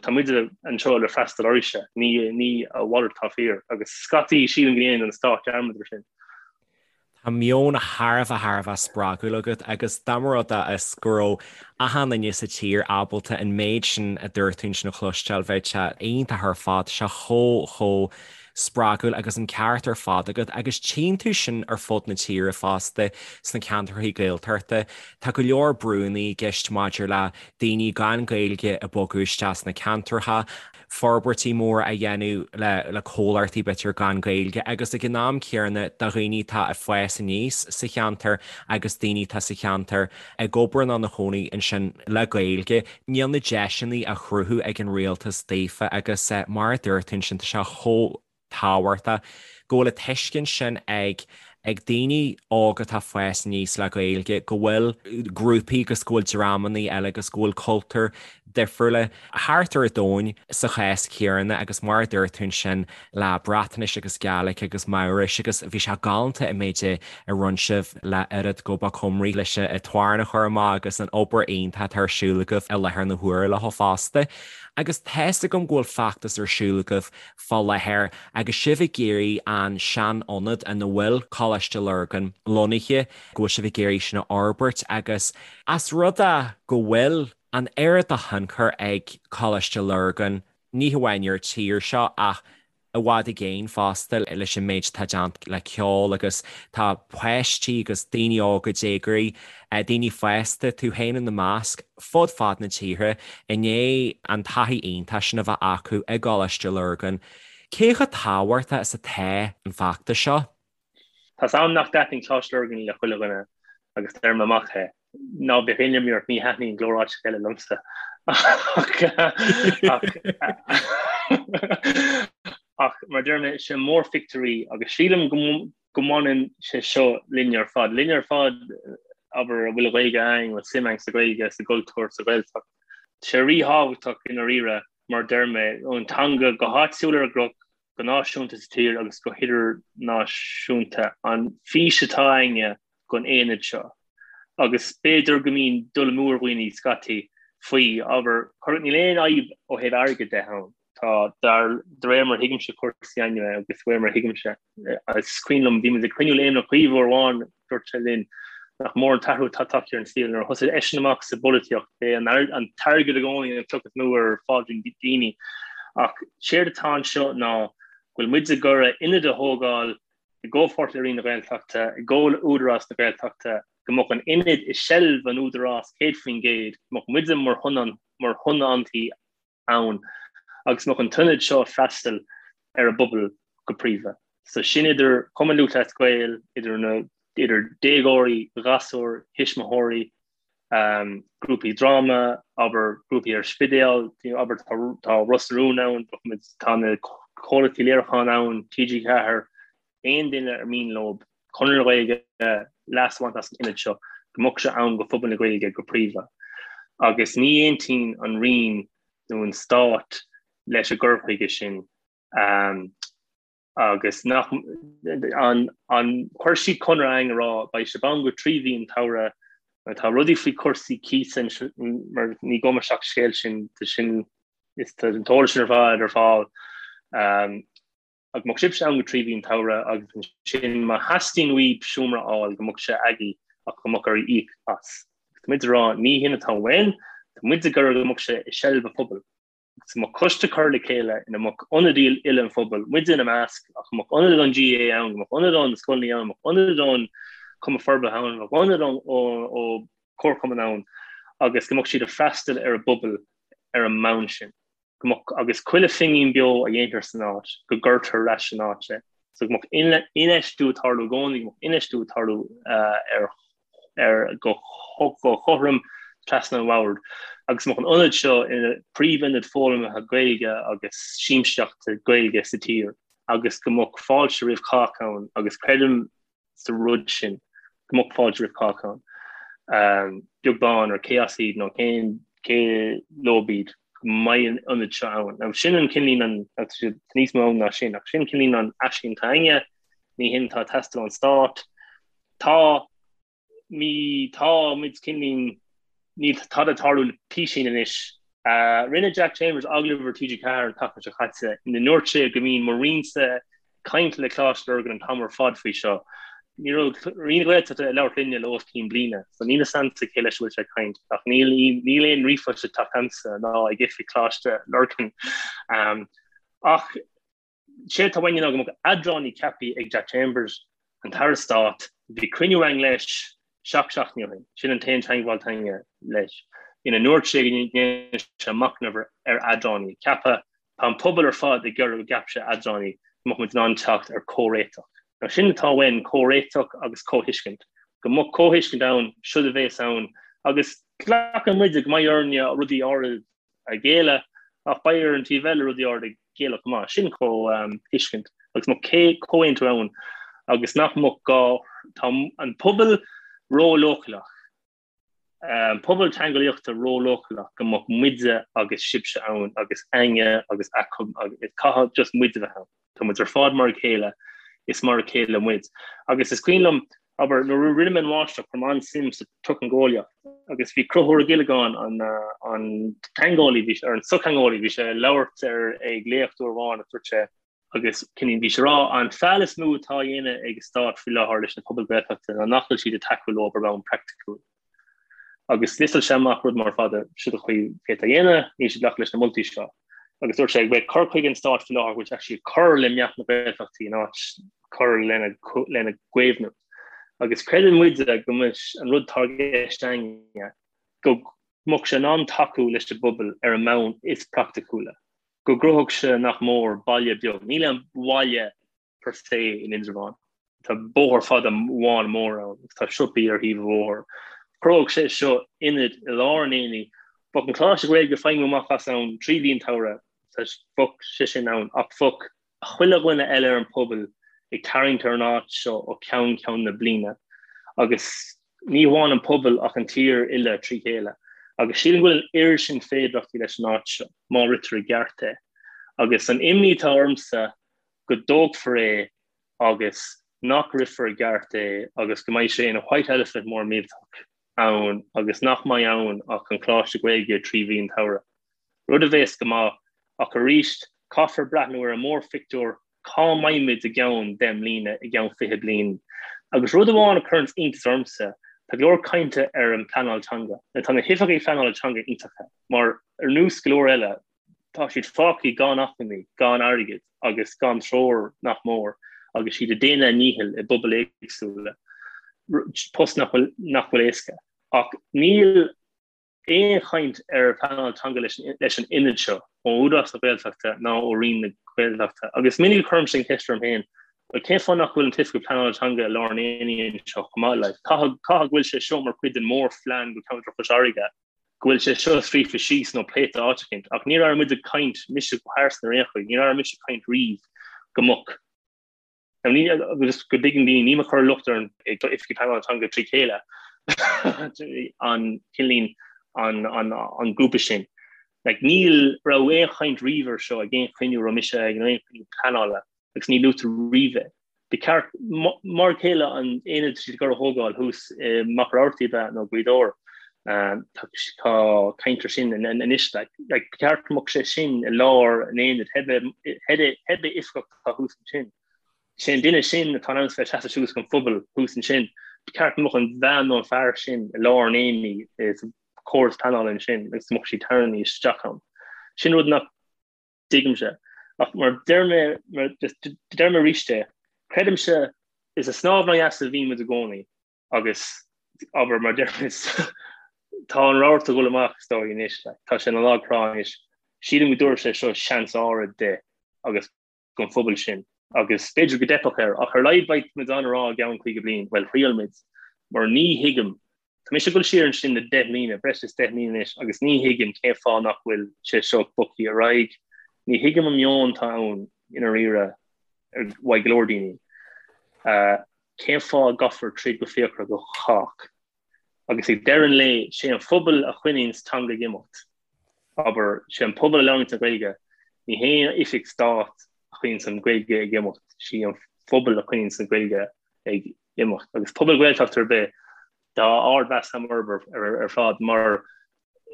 C: Tá muid anseo le freastal oraibhse, ní ní a mhalairt atá fíor agus scaití sílim go ndéanann an stát dearmad ar sin.
A: Tá meon thar a bheith thar a bheith spreagúil agat agus dá mba rud é is go raibh achan duine sa tír ábalta an méid sin a dúirt tú ansin a chloisteáil bheadh sé iontach ar fad, sé chomh chomh spreagúil agus an ceart ar fad agat agus tchíonn tú sin ar fud na tíre fosta sna ceantracha Gaeltachta. Tá go leor brúnna i gceist maidir le daoine gan Gaeilge ag bogadh isteach sna ceantracha. forbairtí móra a dhéanamh le comhlachtaí b'fhéidir gan Gaeilge agus ag an am céanna do dhaoine atá ag fás aníos sa cheantar agus daoine atá sa cheantar ag obair nó ina chónaí ansin le Gaeilge. Níl na deiseanna á chruthú ag an rialtas daofa agus mar a dúirt tú ansin tá sé chomh tábhachtach go bhfuil an tuiscint sin ag ag daoine óga atá ag fás aníos le Gaeilge go bhfuil grúpaí agus go bhfuil dreamanna eile agus go bhfuil cultúir difriúla thart ar an domhan sa chás céanna agus mar a dúirt tú ansin le Breatnais agus Gaeilge agus Maorais agus bhí sé galánta an méid a rinne sibh le Urdd Gobaith Cymru leis an t-amhrán a chur amach agus an obair iontach atá ar siúl agaibh i láthair na huaire leo fosta. Agus tá's agam go bhfuil feachtas ar siúl agaibh fá láthair agus sibh ag iarraidh an sean-ionad ina bhfuil Coláiste Lurgan lonnaithe, go bhfuil sibh ag iarraidh sin a fhorbairt agus as rud é go bhfuil an oiread de thionchar ag Coláiste Lurgan, ní hamháin ar an tír seo ach. i bhfad i gcéin fosta leis an méid atá déanta le ceol agus tá páistí agus daoine óga, déagóirí, daoine fásta, tú féin ina measc, fud fad na tíre i ndiaidh an taithí iontach sin a bheith acu i gColáiste Lurgan. Cé chomh tábhachtach is atá an feachtas seo?
C: Tá's a'm nach dtaitníonn Coláiste Lurgan le chuile dhuine agus deirim amach é. Ná bíodh aon imní ort, ní thaitníonn go leor áiteacha eile liomsa. Ach mar a deir mé, sé mórphictiúr í agus sílim go go mbaineann sé seo linne ar fad. Linne ar fad, abair, a bhfuil an Ghaeilge againn, a bhfuil suim againn sa Ghaeilge, sa gcultúr, sa Ghaeltacht. Tá sé ríthábhachtach i ndáiríre, mar a deir mé, an teanga go háitiúil ar an gCnoc, go náisiúnta sa tír agus go hidirnáisiúnta, an fís atá againne don aonad seo. Agus b'fhéidir go mbíonn dul amú ar dhaoine scaití faoi, abair, níl aon fhadhb ó thaobh airgid de ann. Tá, dar, de réir mar a thuigimse cúrsaí anyway agus de réir mar a thuigimse, is cuimhin liom, bhí muid ag cruinniú le Éamon Ó Cuív uair amháin, dúirt sé linn nach mór an t-athrú atá tagtha ar an saol nuair a thosaigh eisean amach sa bpolaitíocht, b'é an t-airgead i gcónaí an chloch is mó ar phaidrín daoine. Ach séard atá anseo ná go bhfuil muid ag iarraidh ionad a thógáil i gcomhpháirt le Roinn na Gaeltachta, i gcomhar le Údarás na Gaeltachta, go mbeadh an ionad i seilbh an Údarás 100%, go mbeadh muide mar thionóntaí ann agus go mbeadh an t-ionad seo ag freastal ar an bpobal go príomha. So sin idir Cumann Lúthchleas Gael, idir na idir déagóirí, ghasúir, thuismitheoirí, um, grúpaí dráma, abair grúpaí ar Spidéal, abair tá, tá Ros na Rún ann, tá na comhlachtaí léiriúcháin ann, TG4, aon duine ar mian leo, Conradh na Gaeilge, leas a bhaint as an ionad seo, go mbeadh sé ann go phobal na Gaeilge go príomha. Agus ní aontaíonn an Roinn nó an Stát leis an gcur chuige sin agus nach an an chuir siad conradh againn a rá beidh sibh ann go 3 mhí an tsamhraidh mar tá rudaí faoi cúrsaí cíosa mar ní gabhfaidh mé isteach sa scéal sin sin is tá an t-eolas sin ar fad ar fáil. Go mbeadh sibhse ann go 3 mhí an tsamhraidh agus ansin má theastaíonn uaibh seomra a fháil go mbeadh sé agaibh ach go mbeadh oraibh íoc as. Agus tá muid ag rá ní hin atá uainn, tá muid ag iarraidh go mbeadh sé i seilbh an phobail. Agus go mbeadh coiste curtha le chéile ina mbeadh ionadaí uile an phobail, muide ina measc, ach go mbeadh ionadaí ón GAA ann, go mbeadh ionadaí ó na scoileanna ann, go mbeadh ionadaí ón Cumann Forbartha ann, go mbeadh ionadaí ó chomharchumann ann agus go mbeadh siad ag freastal ar an bpobal ar an mbonn sin. go mbeadh, agus chuile phingin beo a dhéantar san áit, go gcuirtear ar ais san áit é. So go mbeadh infheistiú ag tarlú i gcónaí, go mbeadh infheistiú ag tarlú ar, ar, go, go cothrom trasna an bhoird. Agus go mbeadh an ionad seo ina príomhionad foghlamtha Gaeilge agus siamsaíochta Gaeilge sa tír agus go mbeadh fáilte roimh chách ann agus creidim sa rud sin, go mbeadh fáilte roimh chách ann, beag beann ar cé as iad nó cén cé leo iad, go mbeidh an ionad seo ann. Now sin an cineál an, tá níos mó ann ná sin, ach sin cineál an aisling atá againne, ní hin atá ag teastáil ón stát. Tá Ní tá muid cineál níl tada ag tarlú le písín anois. Rinne Jack Chambers agallamh ar TG4 an tseachtain seo caite ina ndúirt sé go mbíonn mo Roinnse ag caint le Coláiste Lurgan an t-am ar fad faoi seo. Ní raibh Roinn na Gaeltachta ag labhairt linne le os cionn bliana, so níl fhios a'msa cé leis a bhfuil sé ag caint, ach níl níl aon ríomhphost ag teacht a'msa ná ag oifig Choláiste Lurgan. Ach Séard atá uainne ná go mbeadh eadránaí ceaptha ag Jack Chambers, an tAire Stáit. Bhí cruinniú againn leis seacht seachtainí ó shin, sin an t-aon teagmháil atá againne leis, ina ndúirt sé go ndéanfaidh sé machnamh ar eadránaí a cheapadh. Tá an pobal ar fad ag iarraidh go gceapfaidh sé eadránaí go mbeadh muid in ann teacht ar comhréiteach. Now sin atá uainn, comhréiteach agus comhthuiscint. Go mbeadh comhthuiscint ann, seod a bhéas ann, agus glacann muide go mbeidh orainne rudaí áirid a ghéilleadh, ach beidh ar an taobh eile rudaí áirid a ghéilleadh chomh maith. Sin comhthuiscint agus go mbeadh comhaontú ann agus nach mbeadh gá, tá an pobal ró-leochaileach, an pobal teangeolaíochta ró-leochaileach go mbeadh muide agus sibhse ann agus againne agus acu agus caithfidh just muid a bheith ann. Tá muid ar fad mar a chéile, is mar a chéile muid. Agus is cuimhin liom, abair, nuair a rinne mé an mháistreacht, chuir mé an-suim sa tsochtheangeolaíocht agus bhí Conchúr Ó Giollagáin, an an teangeolaí, bhí sé, ar an sochtheangeolaí, bhí sé ag labhairt ar ag léacht uair amháin agus dúirt sé, agus cineál bhí sé ag rá, an feall is mó atá á dhéanamh ag an stát faoi láthair leis na pobail Ghaeltachta ná nach bhfuil siad ag tacú leo ar bhonn praiticiúil. Agus liostáil sé amach rud mór fada, siod an chaoi féadfá a dhéanamh, níl siad ag glacadh leis na moltaí seo. Agus dúirt sé go bhfuil cur chuige an stáit faoi láthair go bhfuil sé actually ag cur le meath na Gaeltachtaí in áit cur lena lena gcaomhnú. Agus creideann muide go mbeadh an rud atá i gceist againne go mbeadh sé in ann tacú leis an bpobal ar an mbonn is praiticiúla, go gcruthódh sé nach mór baile beag, níl aon bhaile per se in Indreabhán. Tá bóthar fada amháin mór ann agus tá siopaí ar thaobh an bhóthair. Chruthódh sé seo ionad i lár an aonaigh. Bheadh an Coláiste Gaeilge ag feidhmiú amach as ann 3 mhí an tsamhraidh, bheadh sé sin ann ach bheadh chuile dhuine eile ar an pobal ag tarraingt ar an áit seo ó cheann ceann na bliana agus ní hamháin an pobal ach an tír uile trí chéile. Agus sílim go bhfuil an oiread sin féidearthachtaí leis an áit seo má ritear i gceart é. Agus an imní atá ormsa go dtógfar é agus nach rithfear i gceart é agus go mbeidh sé ina white elephant mór millteach ann agus nach mbeidh ann ach an Coláiste Gaeilge 3 mhí an tsamhraidh. Rud a bhéas go maith, ach arís caithfear breathnú ar an mórphictiúr, cá mbeimid i gceann 10 mbliana, i gceann 20 bliain? Agus rud amháin a chuireanns iontas ormsa, tá go leor cainte ar an phleanáil teanga. Now tá na hoifigigh phleanála teanga iontacha, mar ar nós go leor eile, Tá siad fágtha gan acmhainní, gan airgead agus gan treoir nach mór agus siad ag déanamh a ndíchill i bpobail éagsúla, post nach bhfuil nach bhfuil éasca. Ach níl aon chaint ar phleanáil teanga leis an ionad seo ó Údarás na Gaeltachta ná ó Roinn na Gaeltachta. Agus minic a chuirimse an cheist orm féin, bhuel cén fáth nach bhfuil an t-oifigeach pleanála teanga i lár an aonaigh anseo chomh maith? Like, caithfidh go bhfuil sé seo mar chuid den mhórphlean go ceantar Chois Fharraige. go bhfuil sé seo scríofa síos nó pléite áit eicínt, ach níor airigh muid ag caint, mise go pearsanta ar aon chaoi, níor airigh mise ag caint riamh go mbeadh, now ní, agus go dtuigeann daoine, nílim ag cur locht ar an Oifig Pleanála Teanga trí chéile, an cineál, an, an, an grúpa sin. Like, ní raibh aon chaint riamh ar seo ag aon chruinniú a raibh mise ag, nó aon chruinniú pleanála, agus ní luaitear riamh é. Ba cheart, mar a chéile an aonad atá siad ag dul a thógáil thuas i Machaire Rabhartaigh ab ea nó Gaoth Dobhair, tá caint ar sin anois. Ba cheart go mbeadh sé sin i lár an aonaid, pé oifigeach atá thuas ansin. Sé an duine sin atá in ann bheith seasamh suas don phobal thuas ansin. Ba cheart go mbeadh an bhean nó an fear sin i lár an aonaigh sa chóras pleanála ansin agus go mbeadh siad tarraingthe isteach ann. Sin rud nach dtuigimse. Ach mar deir mé, mar deir mé arís é, creidimse is ag snámh in aghaidh easa a bhíonn muid i gcónaí agus abair mar deir muid tá an rabharta ag dul amach is dóigh anois, like, tá sé ina lag trá anois. Sílim go dtabharfaidh sé seo seans áirid di agus don phobal sin agus b'fhéidir go dteipfeadh air ach ar a laghad beidh muid in ann a rá i gceann 50 bliain, bhuel thriail muid mar ní thuigim Tá mise ag dul siar ansin le 10 mbliana, breis is 10 mbliana anois, agus ní thuigim cén fáth nach bhfuil sé seo bogtha ar aghaidh. Ní thuigim an meon atá ann i ndáiríre uaidh go leor daoine. Cén fáth a gcaithfear troid go fíochmhar do chách? Agus ag deireadh an lae, sé an phobal a choinníonns teanga ag imeacht. Abair, sé an pobal a labhraíonns an Ghaeilge, ní haon oifig stáit a choinníonns an Ghaeilge ag imeacht, sí an phobal a choinníonns an Ghaeilge ag imeacht. Agus pobal Gaeltachta ar bith, tá ardmheas agam orthu ar fad mar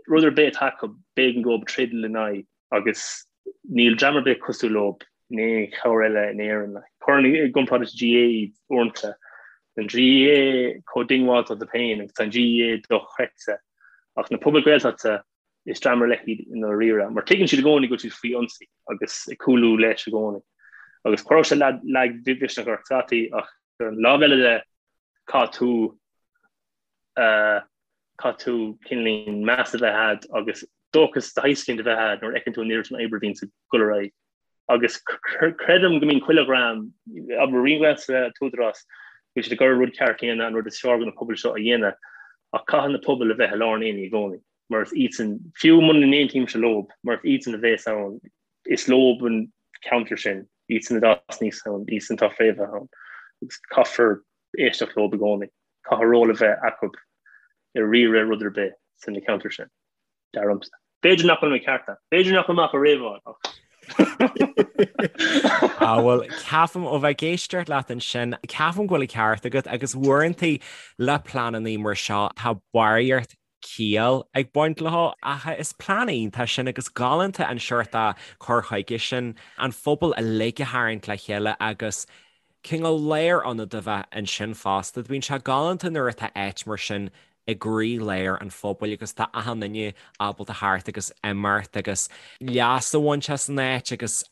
C: rud ar bith atá acu, b'éigean dóibh troid lena aghaidh agus níl dream ar bith cosúil leo in aon cheantar eile in Éirinn. Cuirim i gcomparáid leis an GAA iad uaireanta. Tá an GAA chomh diongbháilte dóibh féin agus tá an GAA dochreidte. Ach na pobail Gaeltachta, is dream ar leith iad i ndáiríre, mar tuigeann siad i gcónaí go bhfuil siad faoi ionsaí agus ag cúlú leis i gcónaí. Agus chuirfeadh sé lagmhisneach ort scaití ach ar an lámh eile de, caithfidh tú, caithfidh tú cineáilín meas a bheith agat agus dóchas de shaghas éicint a bheith agat nuair a fheiceann tú an oiread sin oibre a bhíonns ag dul ar aghaidh. Agus creidim go mbíonn chuile dhream, abair Roinn na Gaeltachta, an tÚdarás, go bhfuil siad ag iarraidh an rud ceart a dhéanamh, an rud is fearr do na pobail seo a dhéanamh, ach caithfidh na pobail a bheith i lár an aonaigh i gcónaí, mar is iadsan, fiú muna n-aontaímse leob, mar is iadsan a bhéas ann, is leob an ceantar sin, iadsan a d'fhás aníos ann, iadsan atá fréamhaithe ann, agus caithfear éisteacht leob i gcónaí, caithfidh ról a bheith acu i riaradh rud ar bith san na ceantar sin. Dar liomsa. B'fhéidir nach bhfuil mé ceart. B'fhéidir nach bhfuil mé ach ag réabháil ach.
A: Á bhuel, ceapaim ó bheith ag éisteacht leat ansin, ceapaim go bhfuil an ceart agat agus uaireanta le pleananna mar seo tá barraíocht ciall ag baint leo ach is plean iontach sin agus galánta an seort cur chuige sin, an phobal uilig a tharraingt le chéile agus cineál lárionad a bheith ansin fosta. Bíonn sé galánta nuair atá áit mar sin. i gcroí-lár an phobail agus tá achan duine ábalta theacht agus imeacht agus leas a bhaint as an áit agus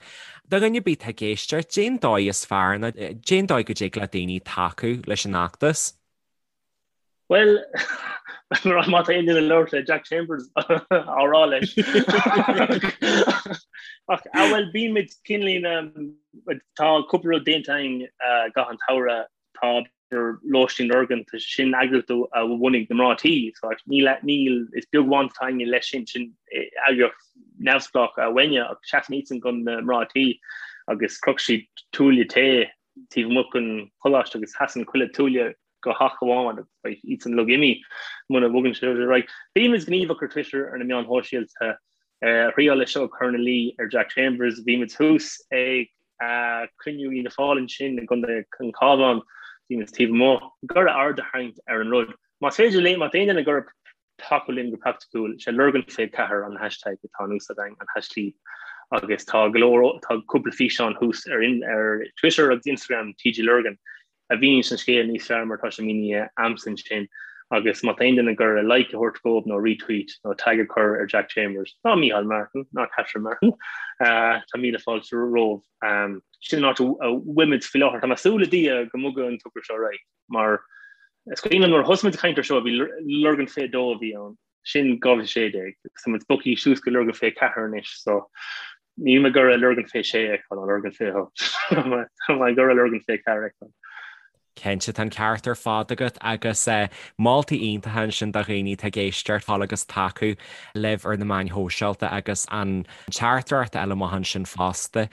A: do dhuine ar bith atá ag éisteacht, cén dóigh is fearr nó cén dóigh go dtig le daoine tacú leis an fheachtas?
C: Bhuel, má tá aon duine ag labhairt le Jack Chambers á rá leis. Ach bhuel, bímid cineáilín, tá cúpla rud déanta againn i gcaitheamh an tsamhraidh, tá Lóistín Lurgan, tá sin eagraíocht a bhunaigh na mná tí, so níl, níl, is beag baint atá againne leis sin, sin eagraíocht neamhspleách uainne ach seasann iadsan do na mná tí agus chroch siad tuaille tae taobh amuigh den choláiste agus seasann chuile tuaille go theach amháin agus beidh iadsan uilig imithe muna bhogann sé ar aghaidh. Bímid gníomhach ar Twitter ar na meáin shóisialta, thriáil leis seo ag cur ina luí ar Jack Chambers, bhí muid thuas ag cruinniú Fhianna Fáil ansin i gContae an Chabháin, bhí muid taobh amuigh, ag iarraidh aird a tharraingt ar an rud. Más féidir linn, má tá aon duine ag iarraidh tacú linn go praiticiúil, sé Lurgan 24 an hashtag atá in úsáid againn, an haischlib, agus tá go leor, tá cúpla físeán thuas ar ar Twitter agus Instagram TG Lurgan a mhíníonns an scéal níos fearr mar atá sé mínithe a'msa ansin agus má tá aon duine ag iarraidh like a thabhairt dóibh nó retweet nó tag a chur ar Jack Chambers ná Micheál Martin ná Catherine Martin tá míle fáilte romhaibh. Sin an áit a bhfuilimid faoi láthair. Tá mé ag súil le Dia go mbogfaidh an togra seo ar aghaidh mar is cuimhin liom nuair a thosaigh muid ag caint ar seo bhí Lurgan 22 a bhí ann. Sin 2016 agus tá muid bogtha suas go Lurgan 24 anois so níl mé ag iarraidh Lurgan 26 a fheiceáil ná Lurgan 28. Tá mé ag iarraidh Lurgan 24 a fheiceáil.
A: Cinnte, tá an ceart ar fad agat agus moltaí iontacha ansin do dhaoine atá ag éisteacht fáil agus tacú libh ar na meáin shóisialta agus an teachtaireacht eile amach ansin fosta.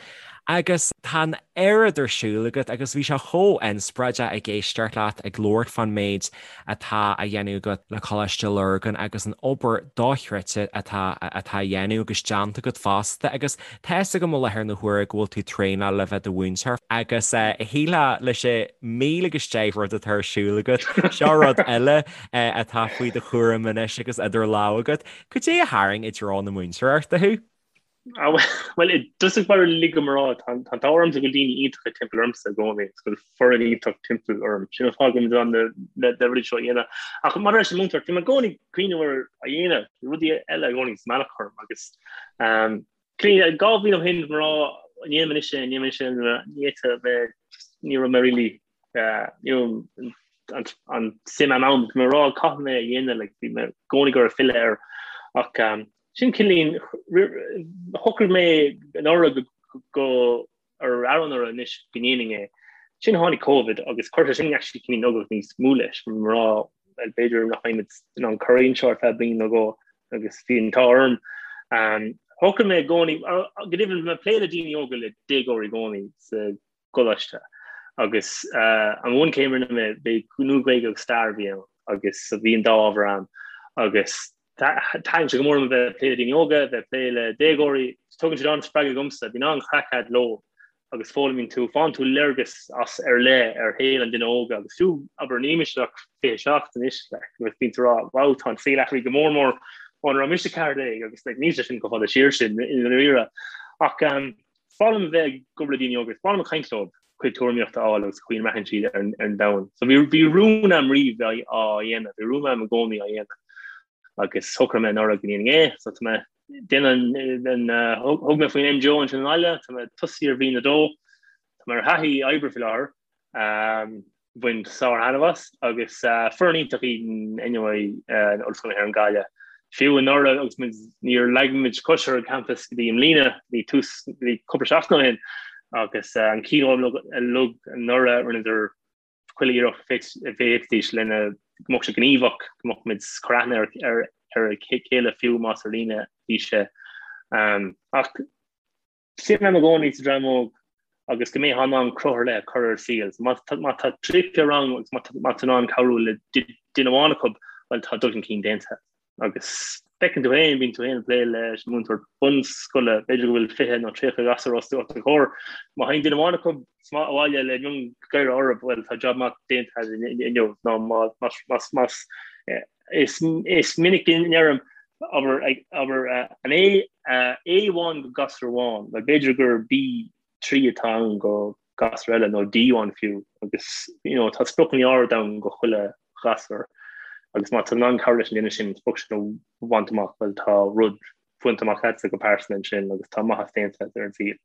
A: Agus tá an oiread ar siúl agat agus bhí sé chomh inspioráideach ag éisteacht leat ag labhairt fán méid atá á dhéanamh agat le Coláiste Lurgan agus an obair dochreidte atá atá á dhéanamh agus déanta agat fosta agus tá fhios agam i láthair na huaire go bhfuil tú traenáil le bheith do mhúinteoir agus shílfeá leis an míle agus deich rud atá ar siúl agat, seo rud eile atá faoi do chúram anois agus idir lámha agat. Cad é a tharraing i dtreo na múinteoireachta thú?
C: Bhuel, i dtosach báire lig dom a rá, tá an t-ádh ormsa go bhfuil daoine iontacha timpeall ormsa i gcónaí, agus go bhfuil foireann iontach timpeall orm. Sin an fáth go bhfuil mé in ann na rudaí seo a dhéanamh. Ach maidir leis an múinteoireacht, bhí mé i gcónaí ag cuimhneamh ar a dhéanamh, bhí rudaí eile i gcónaí sa mbealach orm agus 2 bhliain ó shin, mar an ndéanfaidh mé anois é, an ndéanfaidh mé anois é, ní fhéadfadh mé, ní raibh mé really an suim a'm ann, bhí mé ag rá caithfidh mé a dhéanamh, like, bhí mé i gcónaí ag iarraidh filleadh air ach sin cineáilín, shocraigh mé anuraidh go ar anuraidh anois go ndéanfainn é. Sin tháinig Covid agus chuir sé sin actually cineáilín ualach níos mó leis, bhí mé ag rá well b'fhéidir nach mbeidh muid in ann cur anseo ar feadh bliain nó dhó agus bhí an t-ádh orm. Shocraigh mé i gcónaí, go deimhin bhí mé ag plé le daoine óga le déagóirí i gcónaí sa gcoláiste agus an bhunchéim a rinne mé, bhí Nua-Ghaeilge agus Stair a bhí ann agus bhí an dá ábhar ann agus thaitin sé go mór liom a bheith ag plé le daoine óga, bheith ag plé le déagóirí, tugann siad an-spreagadh dhomsa, bíonn an-chraic a'd leo agus foghlaimíonn tú, faigheann tú léargas as ar leith ar shaol an duine óga agus fiú, abair, níl mise ach 27 anois, like, agus bíonn tú ag rá, wow, tá an saol athraithe go mór mór óna raibh mise 14 agus like, níl sé sin chomh fada siar sin i ndáiríre. Ach um, Is breá liom a bheith ag obair le daoine óga, is breá liom caint leo, cuid tuairimíochta a fháil agus chaoi a mbraitheann siad ar an domhan. So bhí bhí rún a'm riamh bheith á dhéanamh, bhí rún a'm i gcónaí á dhéanamh agus shocraigh mé anuraidh go ndéanfainn é, so tá mé déanamh an thug mé faoin MGO ansin i nGaillimh, tá mé tosaithe ar bhliain a dó, tá mé ar thaithí oibre faoi láthair. Bhain sár-thaitneamh as agus foireann iontach iad anyway in Ollscoil na hÉireann Gaillimh. Fiú anuraidh agus muid níor leag muid cos ar an campas go dtí i mbliana, bhí tús bhí cúpla seachtain ó shin agus an keynote uilig anuraidh rinneadar chuile iarracht a bhféadfaidís lena go mbeadh sé gníomhach, go mbeadh muid cur aithne ar ar a chéile fiú más ar líne a bhí sé. Ach Suim a'm i gcónaí sa dream óg agus go mbeifeá in ann cruth ar leith a chur ar a saol. So má má tá 30 rang agus má má tá in ann cabhrú le duine amháin acu, bhuel tá dul chun cinn déanta. Agus feiceann tú féin, bíonn tú féin ag plé leis an múinteoir bunscoile, b'fhéidir go bhfuil 20 nó 30 gasúr os do chomhair. Má théann duine amháin acu abhaile le miongháire orthu, bhuel tá job maith déanta inniu nó má más más Is is minic a ndeirim, abair, abair, an A, A amháin go gasúr amháin, bhuel b'fhéidir gur B3 atá ann go gasúr eile nó D amháin fiú agus you know tá spriocanna ard ann go chuile ghasúr. Agus má tá tú in ann cabhrú leis an duine sin an sprioc sin a bhaint amach, bhuel tá rud bainte amach agatsa go pearsanta ansin agus tá maitheas déanta agat ar an saol.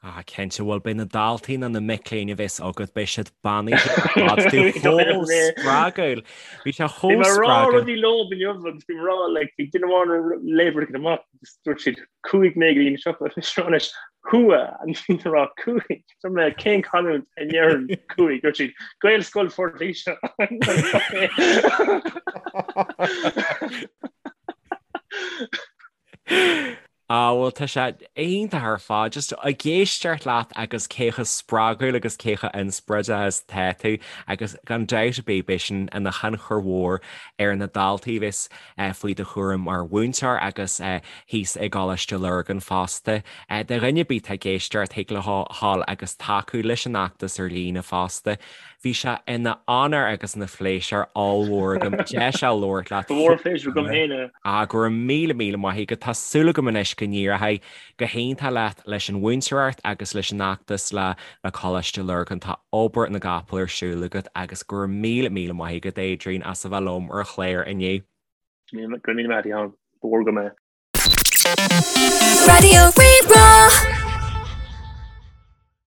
A: Ah, cinnte, bhuel beidh na daltaí nó na mic léinn a bheas agat, beidh siad beannaithe ar fad, tú chomh spreagúil. Bhí sé chomh spreagúil.
C: Bhí mé ag rá rudaí leo inniu agus bhí mé ag rá like bhí duine amháin ag léamh rud éigin amach agus dúirt siad chuaigh mé go dtí an siopa agus rá anois chuaigh and bhí mé ag rá chuaigh Dúirt mé cén canúint a ndeireann chuaigh dúirt siad Gaelscoil Phort Laoise.
A: Ah bhuel tá sé iontach ar fad, just ag éisteacht leat agus cé chomh spreagúil agus cé chomh inspioráideach is atá tú agus gan dabht ar bith beidh sin ina thionchar mhór ar na daltaí a bheas faoi do chúram mar mhúinteoir agus thíos i gColáiste Lurgan fosta. Do dhuine ar bith atá ag éisteacht thig leo a ghabháil agus tacú leis an fheachtas ar líne fosta. Bhí sé ina onóir agus ina phléisiúr ollmhór agam deis a labhairt leat.
C: Ba mhór an pléisiúr agam féin é.
A: Ah, go raibh míle míle maith agat. Tá súil agam anois go n-éireoidh go hiontach leat leis an mhúinteoireacht agus leis an fheachtas le le Coláiste Lurgan. Tá obair na gcapall ar siúl agat agus go raibh míle míle maith agat Adrian as a bheith liom ar an chlár inniu.
C: Go raibh míle maith agat a Sheáin. Ba mhór agam é.
B: Raidió Rí-Rá.